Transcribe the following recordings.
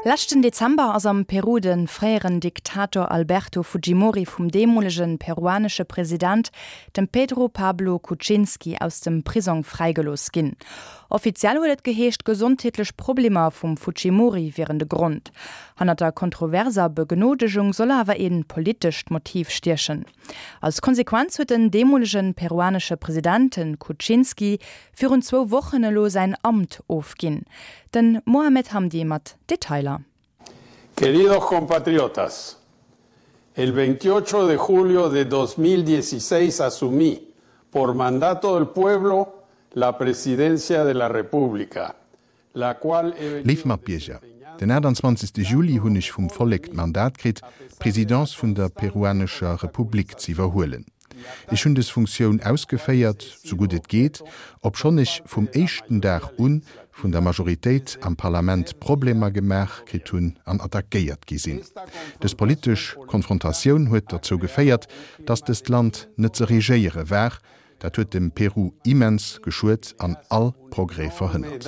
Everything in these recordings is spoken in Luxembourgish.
Leschten Dezember ass am Peru de fréieren Diktator Alberto Fujimori vum deemolege peruanesche President, dem Pedro Pablo Kuczynski, aus dem Prisong fräigelooss ginn. Offiziell huet et geheescht, gesondheetlech Problemer vum Fujimori wieren de Grond. Hannert der kontroverser Begnodegung soll awer ee politescht Motiv stiechen. Als Konsequenz huet den deemolege peruanesche President, de Kuczynski, virun zwou Wochen elo säin Amt ofginn. Den Mohamed Hamdi mat Detailer. Queridos compatriotas, el 28 de julio de 2016 asumí, por mandato del pueblo, la presidencia de la República, la cual he Léif Matbierger, den 28. Juli hunn ech vum Vollek d'Mandat kritt, d'Presidence vun der peruanescher Republik z'iwwerhuelen. Ech hunn des Funktioun ausgeféiert, sou gutt et geet, obschonn ech vum éischten Dag un vun der Majoritéit am Parlament Problemer gemaach kritt hunn an attackéiert gi sinn. Des politesch Konfrontatioun huet derzou geféiert, dass dëst Land net ze regéiere war. Dat huet dem Peru immens geschuet an all Progrès verhënnert.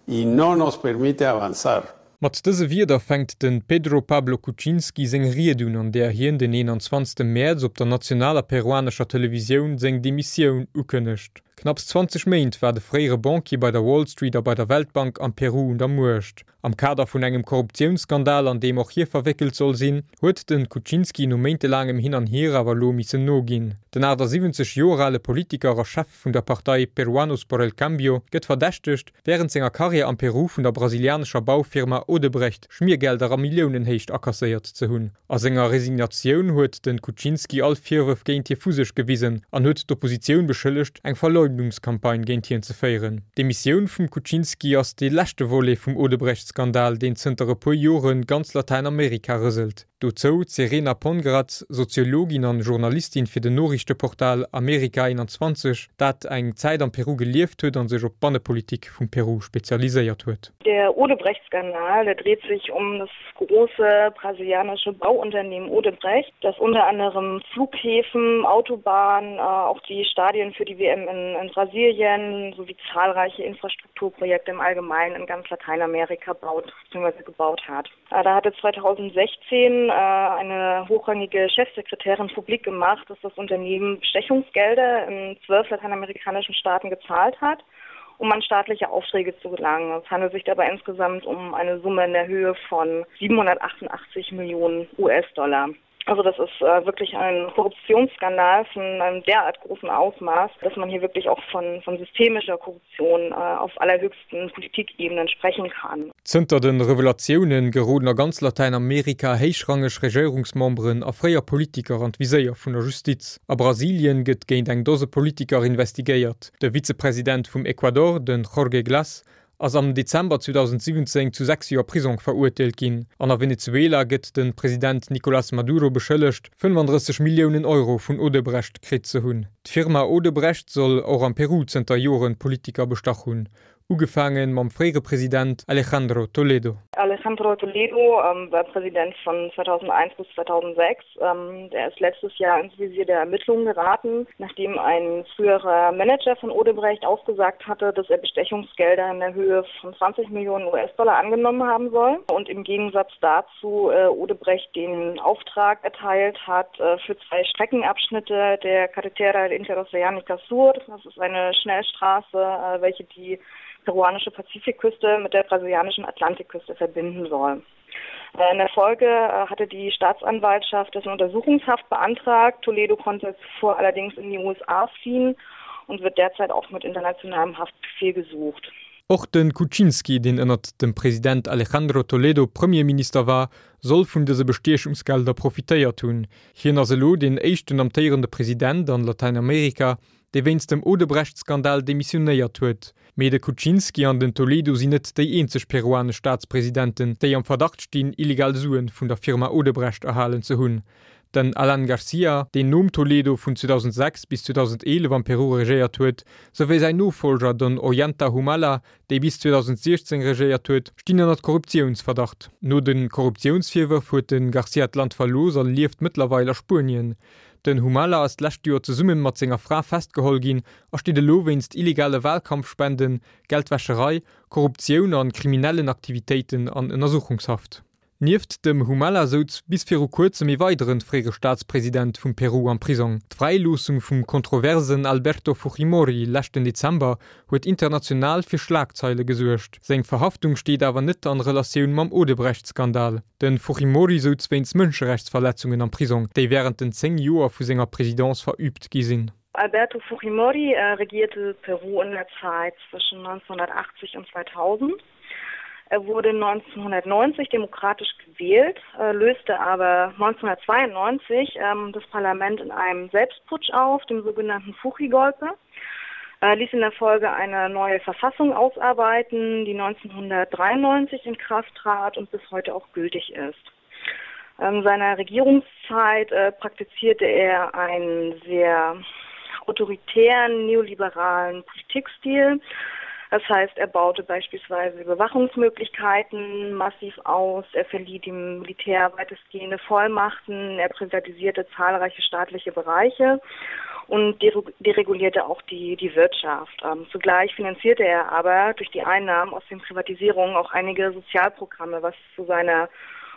y no nos permite avanzar. Mat dëse Wierder fänkt de Pedro Pablo Kuczynski seng Ried un, an där hien den 21 Mäerz op der nationaler peruanescher Televisioun seng Demissioun ukënnegt. Knapps 20 Méint war de fréiere Banquier bei der Wall Street a bei der Weltbank am Peru un der Muecht. Am Kader vun engem Korruptiounsskandal, an deem och hie verwéckelt soll sinn, huet de Kuczynski no méintelaangem Hin an Hier awer elo missen noginn. Den 78 Joer ale Politiker a Chef vun der Partei Peruanos por el Cambio gëtt verdächtegt, wärend senger Karriär am Peru vun der brasilianescher Baufirma Odebrecht Schmiergelder a Milliounenhéicht akasséiert ze hunn. A senger Resignatioun huet de Kuczynski all Virwërf géint hie vu sech gewisen an huet d'Oppositioun beschëllegt, eng Verleumdungscampagne géint hien ze féieren. D'Demissioun vum Kuczynski ass dee leschte Volet vum Odebrecht-Skandal, deen zënter e puer Jore ganz Latäinamerika rëselt. Dozou d'Serena Pongratz, Soziologin an Journalistin fir den Noriichteportal America 21, dat eng Zäit am Peru gelieft huet an sech op d'Bannepolitik vum Peru spezialiséiert huet. Der Odebrecht-Skandal, der dreht sich um das große brasilianische Bauunternehmen Odebrecht, das unter anderem Flughäfen, Autobahnen, auch die Stadien für die WM in, in Brasilien sowie zahlreiche Infrastrukturprojekte im Allgemeinen in ganz Lateinamerika baut bzw. gebaut hat. Da hatte 2016 eine hochrangige Chefsekretärin publik gemacht, dass das Unternehmen Bestechungsgelder in zwölf lateinamerikanischen Staaten gezahlt hat, um an staatliche Aufträge zu gelangen. Es handelt sich dabei insgesamt um eine Summe in der Höhe von 788 Millionen US-Dollar. Also das ist äh, wirklich ein Korruptionsskandal von einem derart großen Ausmaß, dass man hier wirklich auch von, von systemischer Korruption äh, auf allerhöchsten Politikebenen sprechen kann. Zënter de Revelatioune geroden a ganz Latäinamerika héichrangeg Regéierungsmemberen a fréier Politiker an d'Viséier vun der Justiz. A Brasilien gëtt géint eng Dose Politiker investigéiert. De Vizepresident vum Ecuador, de Jorge Glas, ass am Dezember 2017 zu 6 Joer Prisong verurteelt ginn. An a Venezuela gëtt de President Nicolas Maduro beschëllegt, 35 Milliounen Euro vun Odebrecht kritt ze hunn. D'Firma Odebrecht soll och am Peru zënter Joren Politiker bestach hunn, ugefaange mam fréiere President Alejandro Toledo. Alejandro Toledo war Präsident von 2001 bis 2006. Der ist letztes Jahr ins Visier der Ermittlungen geraten, nachdem ein früherer Manager von Odebrecht ausgesagt hatte, dass er Bestechungsgelder in der Höhe von 20 Millionen US-Dollar angenommen haben soll und im Gegensatz dazu Odebrecht den Auftrag erteilt hat für zwei Streckenabschnitte der Carretera Interoceanica Sur. Das ist eine Schnellstraße, welche die peruanische Pazifikküste mit der brasilianischen Atlantikküste verbinden soll. In der Folge hatte die Staatsanwaltschaft dessen Untersuchungshaft beantragt. Toledo konnte zuvor allerdings in die USA fliehen und wird derzeit auch mit internationalem Haftbefehl gesucht. Och de Kuczynski, deen ënnert dem President Alejandro Toledo Premierminister war, soll vun dëse Bestiechungsgelder profitéiert hunn. Hien ass elo deen éischten amtéierende President an Latäinamerika, dee wéinst dem Odebrecht-Skandal demissionéiert huet. Mee de Kuczynski an den Toledo sinn net déi eenzeg peruanesch Staatspresidenten, déi am Verdacht stinn, illegal Suen vun der Firma Odebrecht erhalen ze hunn. Den Alan Garcia, deen nom Toledo vun 2006 bis 2011 am Peru regéiert huet, souwéi säin Nofollger, den Ollanta Humala, dee bis 2016 regéiert huet, stinn ënnert Korruptiounsverdacht. No de Korruptiounsvirwërf huet de Garcia d'Land verlooss a lieft mëttlerweil a Spuenien. Den Humala ass d'lescht Joer zesumme mat senger Fra festgeholl ginn a steet elo wéinst illegale Walkampfspenden, Geldwäscherei, Korruptioun an kriminellen Aktivitéiten an Ënnersuchungshaft. Nieft dem Humala souz bis viru kuerzem ee weideren fréiere Staatspresident vum Peru am Prisong. D'Fräiloossung vum kontroversen Alberto Fujimori leschten Dezember huet international fir Schlagzeile gesuergt. Seng Verhaftung steet awer net an Relatioun mam Odebrecht-Skandal. De Fujimori souz wéinst Mënscherechtsverletzungen am Prisong, déi wärend den 10 Joer vu senger Presidence verüübt gi sinn. Alberto Fujimori regierte Peru in der Zeit zwischen 1980 und 2000. Er wurde 1990 demokratisch gewählt, löste aber 1992 ähm, das Parlament in einem Selbstputsch auf, dem sogenannten Fujigolpe, ließ in der Folge eine neue Verfassung ausarbeiten, die 1993 in Kraft trat und bis heute auch gültig ist. In seiner Regierungszeit äh, praktizierte er einen sehr autoritären neoliberalen Politikstil. Das heißt, er baute beispielsweise Überwachungsmöglichkeiten massiv aus, er verlieh dem Militär weitestgehende Vollmachten, er privatisierte zahlreiche staatliche Bereiche und deregulierte auch die, die Wirtschaft. Ähm, zugleich finanzierte er aber durch die Einnahmen aus den Privatisierungen auch einige Sozialprogramme, was zu seiner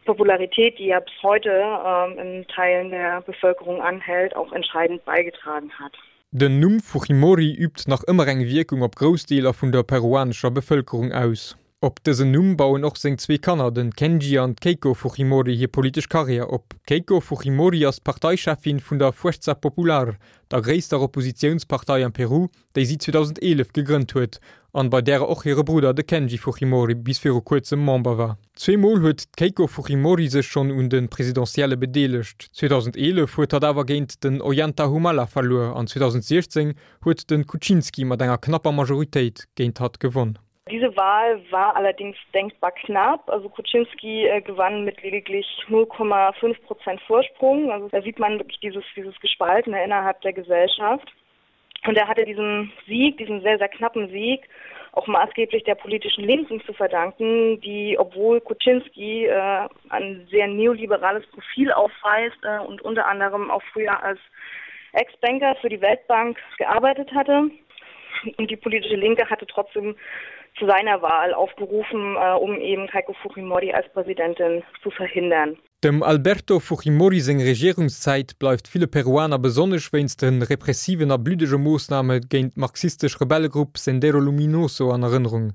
Popularität, die er bis heute ähm, in Teilen der Bevölkerung anhält, auch entscheidend beigetragen hat. Den Numm Fujimori übt nach ëmmer eng Wierkung op grouss Deeler vun der peruanescher Bevëlkerung aus. Op dësen Numm bauen och seng zwee Kanner, den Kenji an d'Keiko Fujimori hir politesch Karriär op. D'Keiko Fujimori ass d'Parteicheffin vun der Fuerza Popular, der gréisster Oppositiounspartei am Peru, déi si 2011 gegrënnt huet an bei därer och hire Brudder, de Kenji Fujimori, bis viru kuerzem Member war. Zweemol huet d'Keiko Fujimori sech schonn un de Presidentielle bedeelegt. 2011 huet hatt awer géint den Ollanta Humala verluer an 2016 huet de Kuczynski mat enger knapper Majoritéit géint hatt gewonn. Diese Wahl war allerdings denkbar knapp. Also Kuczynski äh, gewann mit lediglich 0,5 Prozent Vorsprung. Also da sieht man wirklich dieses, dieses Gespaltene innerhalb der Gesellschaft. Und er hatte diesen Sieg, diesen sehr, sehr knappen Sieg, auch maßgeblich der politischen Linken zu verdanken, die, obwohl Kuczynski äh, ein sehr neoliberales Profil aufweist äh, und unter anderem auch früher als Ex-Banker für die Weltbank gearbeitet hatte. Und die politische Linke hatte trotzdem zu seiner Wahl aufgerufen, äh, um eben Keiko Fujimori als Präsidentin zu verhindern. Dem Alberto Fujimori seng Regierungszäit bleift ville Peruaner besonnesch wéinst de repressiven a bluddege Moossname géint d'marxistesch Rebellegrupp Sendero Luminoso an Erënnerung.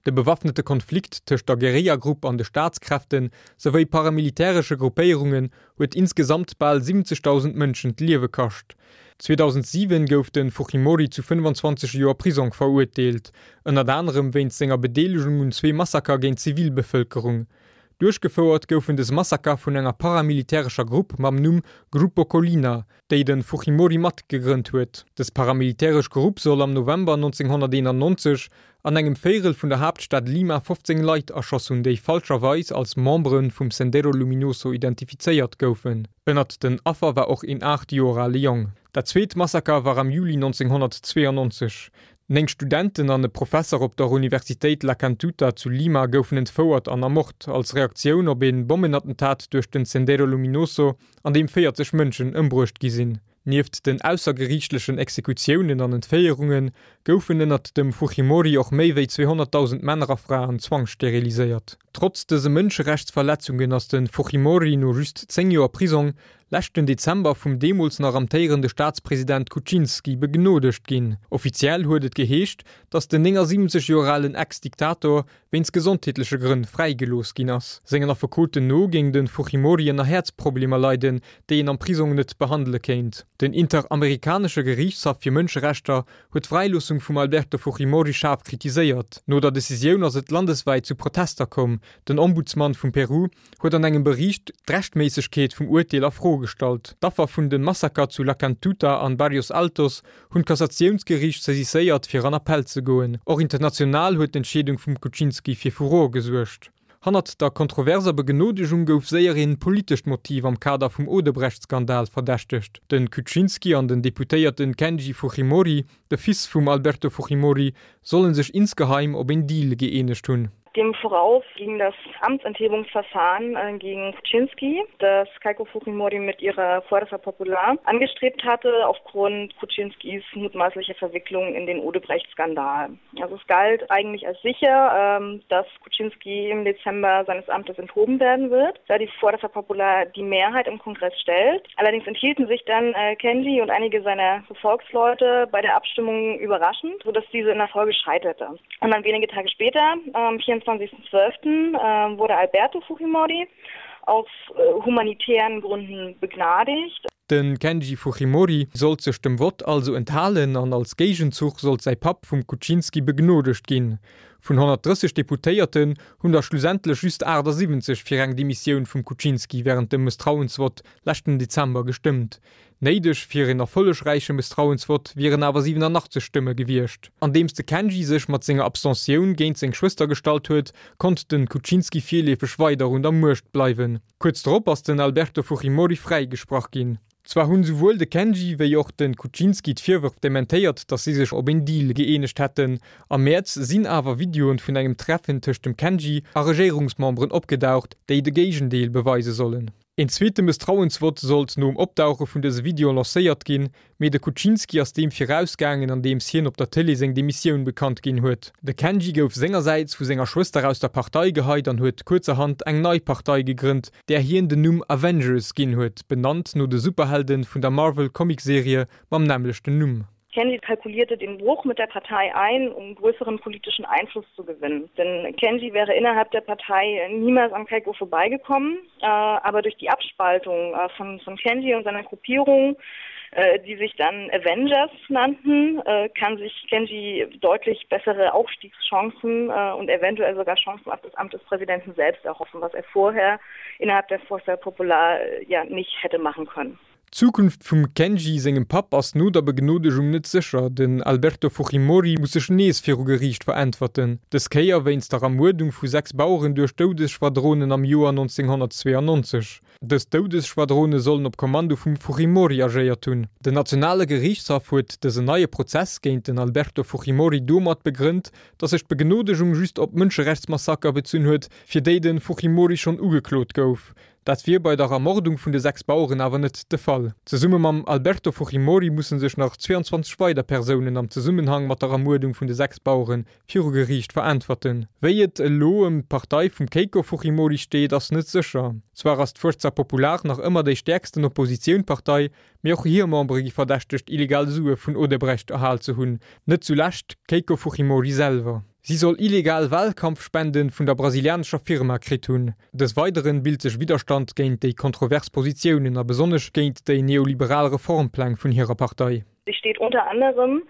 De bewaffnete Konflikt tëscht der Guerillagrupp an de Staatskräfte souwéi paramilitäresche Gruppéierungen huet insgesamt bal 70.000 Mënschen d'Liewe kascht. 2007 gouf de Fujimori zu 25 Joer Prisong verurteelt, ënnert anerem wéinst senger Bedeelegung un zwee Massaker géint d'Zivilbevëlkerung. Duerchgefouert goufen des Massaker vun enger paramilitärescher Grupp mam Numm Grupo Colina, déi de Fujimori mat gegrënnt huet. Des paramilitäresch Grupp soll am November 1991 an engem Véirel vun der Haaptstad Lima 15 Leit erschoss hunn, déi falscherweis als Membere vum Sendero Luminoso identifizéiert goufen. Ënnert den Affer war och een 8 Joer ale Jong. Dat zweet Massaker war am Juli 1992. Néng Studenten an e Professer op der Universitéit La Cantuta zu Lima goufen entfouert an ermort, als Reaktioun op ee Bommenattentat duerch den Sendero Luminoso, an deem 40 Mënschen ëmbruecht gi sinn. Nieft den aussergeriichtlechen Exekutiounen an Entféierunge goufen ënnert dem Fujimori och méi wéi 200.000 Männer a Fraen zwangssteriliséiert. Trotz dëse Mënscherechtsverletzungen ass de Fujimori no just 10 Joer Prisong leschten Dezember vum deemools nach amtéierende Staatspresident Kuczynski begnodegt ginn. Offiziell huet et geheescht, datt den 79 Joer alen Ex-Diktator wéinst gesondheetleche Grënn fräigelooss ginn ass. Sengen Affekoten no géing de Fujimori ënner Häerzproblemer leiden, déi een am Prisong net behandele kéint. Den Interamerikanesche Geriichtshaff fir Mënscherechter huet d'Fräiloossung vum Alberto Fujimori schaarf kritiséiert. No der Decisioun ass et landeswäit zu Protester komm. Den Ombudsman vum Peru huet an engem Bericht d'Rechtméissegkeet vum Urteel a Fro gestallt. D'Affer vun de Massaker zu La Cantuta an Barrios Altos hunn d'Kassatiounsgeriicht saisisséiert, fir an Appell ze goen. Och international huet d'Entscheedung vum Kuczynski fir Furore gesuergt. Hannert der kontroverser Begnodegung gouf séier een politescht Motiv am Kader vum Odebrecht-Skandal verdächtegt. De Kuczynski an den Deputéierten Kenji Fujimori, de Fils vum Alberto Fujimori, solle sech insgeheim op een Deal gëeenegt hunn. Dem voraus ging das Amtsenthebungsverfahren äh, gegen Kuczynski, das Keiko Fujimori mit ihrer Fuerza Popular angestrebt hatte aufgrund Kuczynskis mutmaßlicher Verwicklung in den Odebrecht-Skandal. Also es galt eigentlich als sicher, ähm, dass Kuczynski im Dezember seines Amtes enthoben werden wird, da die Fuerza Popular die Mehrheit im Kongress stellt. Allerdings enthielten sich dann äh, Kenji und einige seiner Gefolgsleute bei der Abstimmung überraschend, sodass diese in der Folge scheiterte. Und dann wenige Tage später, am 24.12., äh, wurde Alberto Fujimori aus äh, humanitären Gründen begnadigt. De Kenji Fujimori sollt sech dem Vott also enthalen an als Géigenzuch sollt säi Papp vum Kuczynski begnodegt ginn. Vun 130 Deputéierten hunn der schlussendlech just 78 fir eng Demissioun vum Kuczynski wärend dem Mësstrauensvott leschten Dezember gestëmmt. Néideg fir een erfollegräiche Mësstrauensvott wieren awer 87 Stëmme gewiescht. Andeems de Kenji sech mat senger Abstentioun géint seng Schwëster gestallt huet, konnt de Kuczynski virleefeg weider un der Muecht bleiwen. Kuerz drop ass den Alberto Fujimori fräigesprach ginn. Zwar hunn souwuel de Kenji wéi och de Kuczynski d'Virwërf dementéiert, datt si sech op een Deal gëeenegt hätten. Am Mäerz sinn awer Videoen vun engem Treffen tëscht dem Kenji a Regéierungsmemberen opgedaucht, déi de Géigendeel beweise sollen. Een zweete Mësstrauensvott sollt nom Opdauche vun dëse Videoen lancéiert ginn, mee de Kuczynski ass deem virausgaangen, andeems hien op der Tëlee seng Demissioun bekannt ginn huet. De Kenji gouf sengersäits vu senger Schwëster aus der Partei geheit an huet kuerzerhand eng nei Partei gegrënnt, där hien den Numm Avengers ginn huet, benannt no de Superhelde vun der Marvel-Comicserie mam nämmlechten Numm. Kenji kalkulierte den Bruch mit der Partei ein, um größeren politischen Einfluss zu gewinnen. Denn Kenji wäre innerhalb der Partei niemals an Keiko vorbeigekommen, äh, aber durch die Abspaltung äh, von, von Kenji und seiner Gruppierung, äh, die sich dann Avengers nannten, äh, kann sich Kenji deutlich bessere Aufstiegschancen äh, und eventuell sogar Chancen auf das Amt des Präsidenten selbst erhoffen, was er vorher innerhalb der Forza Popular äh, ja nicht hätte machen können. D'Zukunft vum Kenji sengem Papp ass no der Begnodegung net sécher. Den Alberto Fujimori muss sech nees viru Geriicht veräntwerten, dës Kéier wéinst der Ermuerdung vu 6 Baueren duerch Doudesschwadronen am Joer 1992. Dës Doudesschwadrone sollen op Kommando vum Fujimori agéiert hunn. Den nationale Geriichtshaff huet dësen neie Prozess géint den Alberto Fujimori domat begrënnt, datt sech d'Begnodegung just op Mënscherechtsmassaker bezunn huet, fir déi de Fujimori schonn ugeklot gouf. Dat wier bei der Ermordung vun de 6 Baueren awer net de Fall. Zesumme mam Alberto Fujimori musse sech nach 22 weider Persounen am Zesummenhang mat der Ermuerdung vun de 6 Bauere viru Geriicht veräntwerten. Wéi et elo ëm d'Partei vum Keiko Fujimori steet, ass net sécher. Zwar ass d'Fuerza Popular nach ëmmer déi stäerksten Oppositiounpartei, mee och hir Membere gi verdächtegt, illegal Sue vun Odebrecht erhal ze hunn, net zulescht d'Keiko Fujimori selwer. Si soll illegal Wahlkampfspenden vun der brasilianescher Firma kritt hunn. Des Weideren bilt sech Widderstand géint déi kontrovers Positiounen a besonnesch géint déi neoliberal Reformpläng vun hirer Partei. Sie steht unter anderem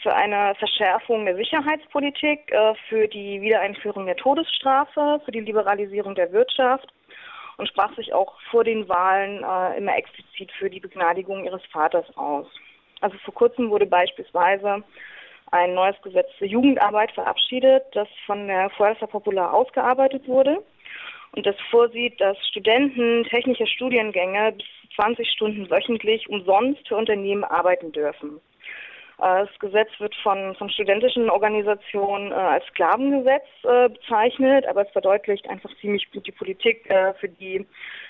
für eine Verschärfung der Sicherheitspolitik, äh, für die Wiedereinführung der Todesstrafe, für die Liberalisierung der Wirtschaft und sprach sich auch vor den Wahlen äh, immer explizit für die Begnadigung ihres Vaters aus. Also vor kurzem wurde beispielsweise ein neues Gesetz zur Jugendarbeit verabschiedet, das von der Fuerza Popular ausgearbeitet wurde und das vorsieht, dass Studenten technischer Studiengänge bis 20 Stunden wöchentlich umsonst für Unternehmen arbeiten dürfen. Äh, das Gesetz wird von, von studentischen Organisationen äh, als Sklavengesetz äh, bezeichnet, aber es verdeutlicht einfach ziemlich gut die Politik, für die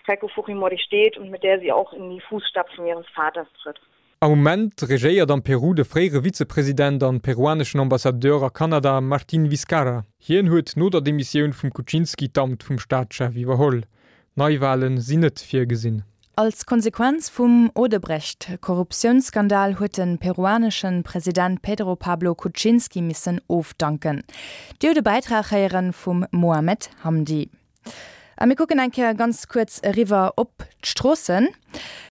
Heiko Fujimori steht und mit der sie auch in die Fußstapfen ihres Vaters tritt. Am Moment regéiert am Peru de fréiere Vizepresident an peruaneschen Ambassadeur a Kanada Martín Vizcarra. Hien huet no der Demissioun vum Kuczynski d'Amt vum Staatschef iwwerholl. Neiwale sinn net virgesinn. Als Konsequenz vum Odebrecht-Korruptiounsskandal huet de peruanesche President Pedro Pablo Kuczynski missen ofdanken. Dir hutt e Bäitrag héiere vum Mohamed Hamdi. A mir kucken eng Kéier ganz kuerz eriwwer op d'Stroossen.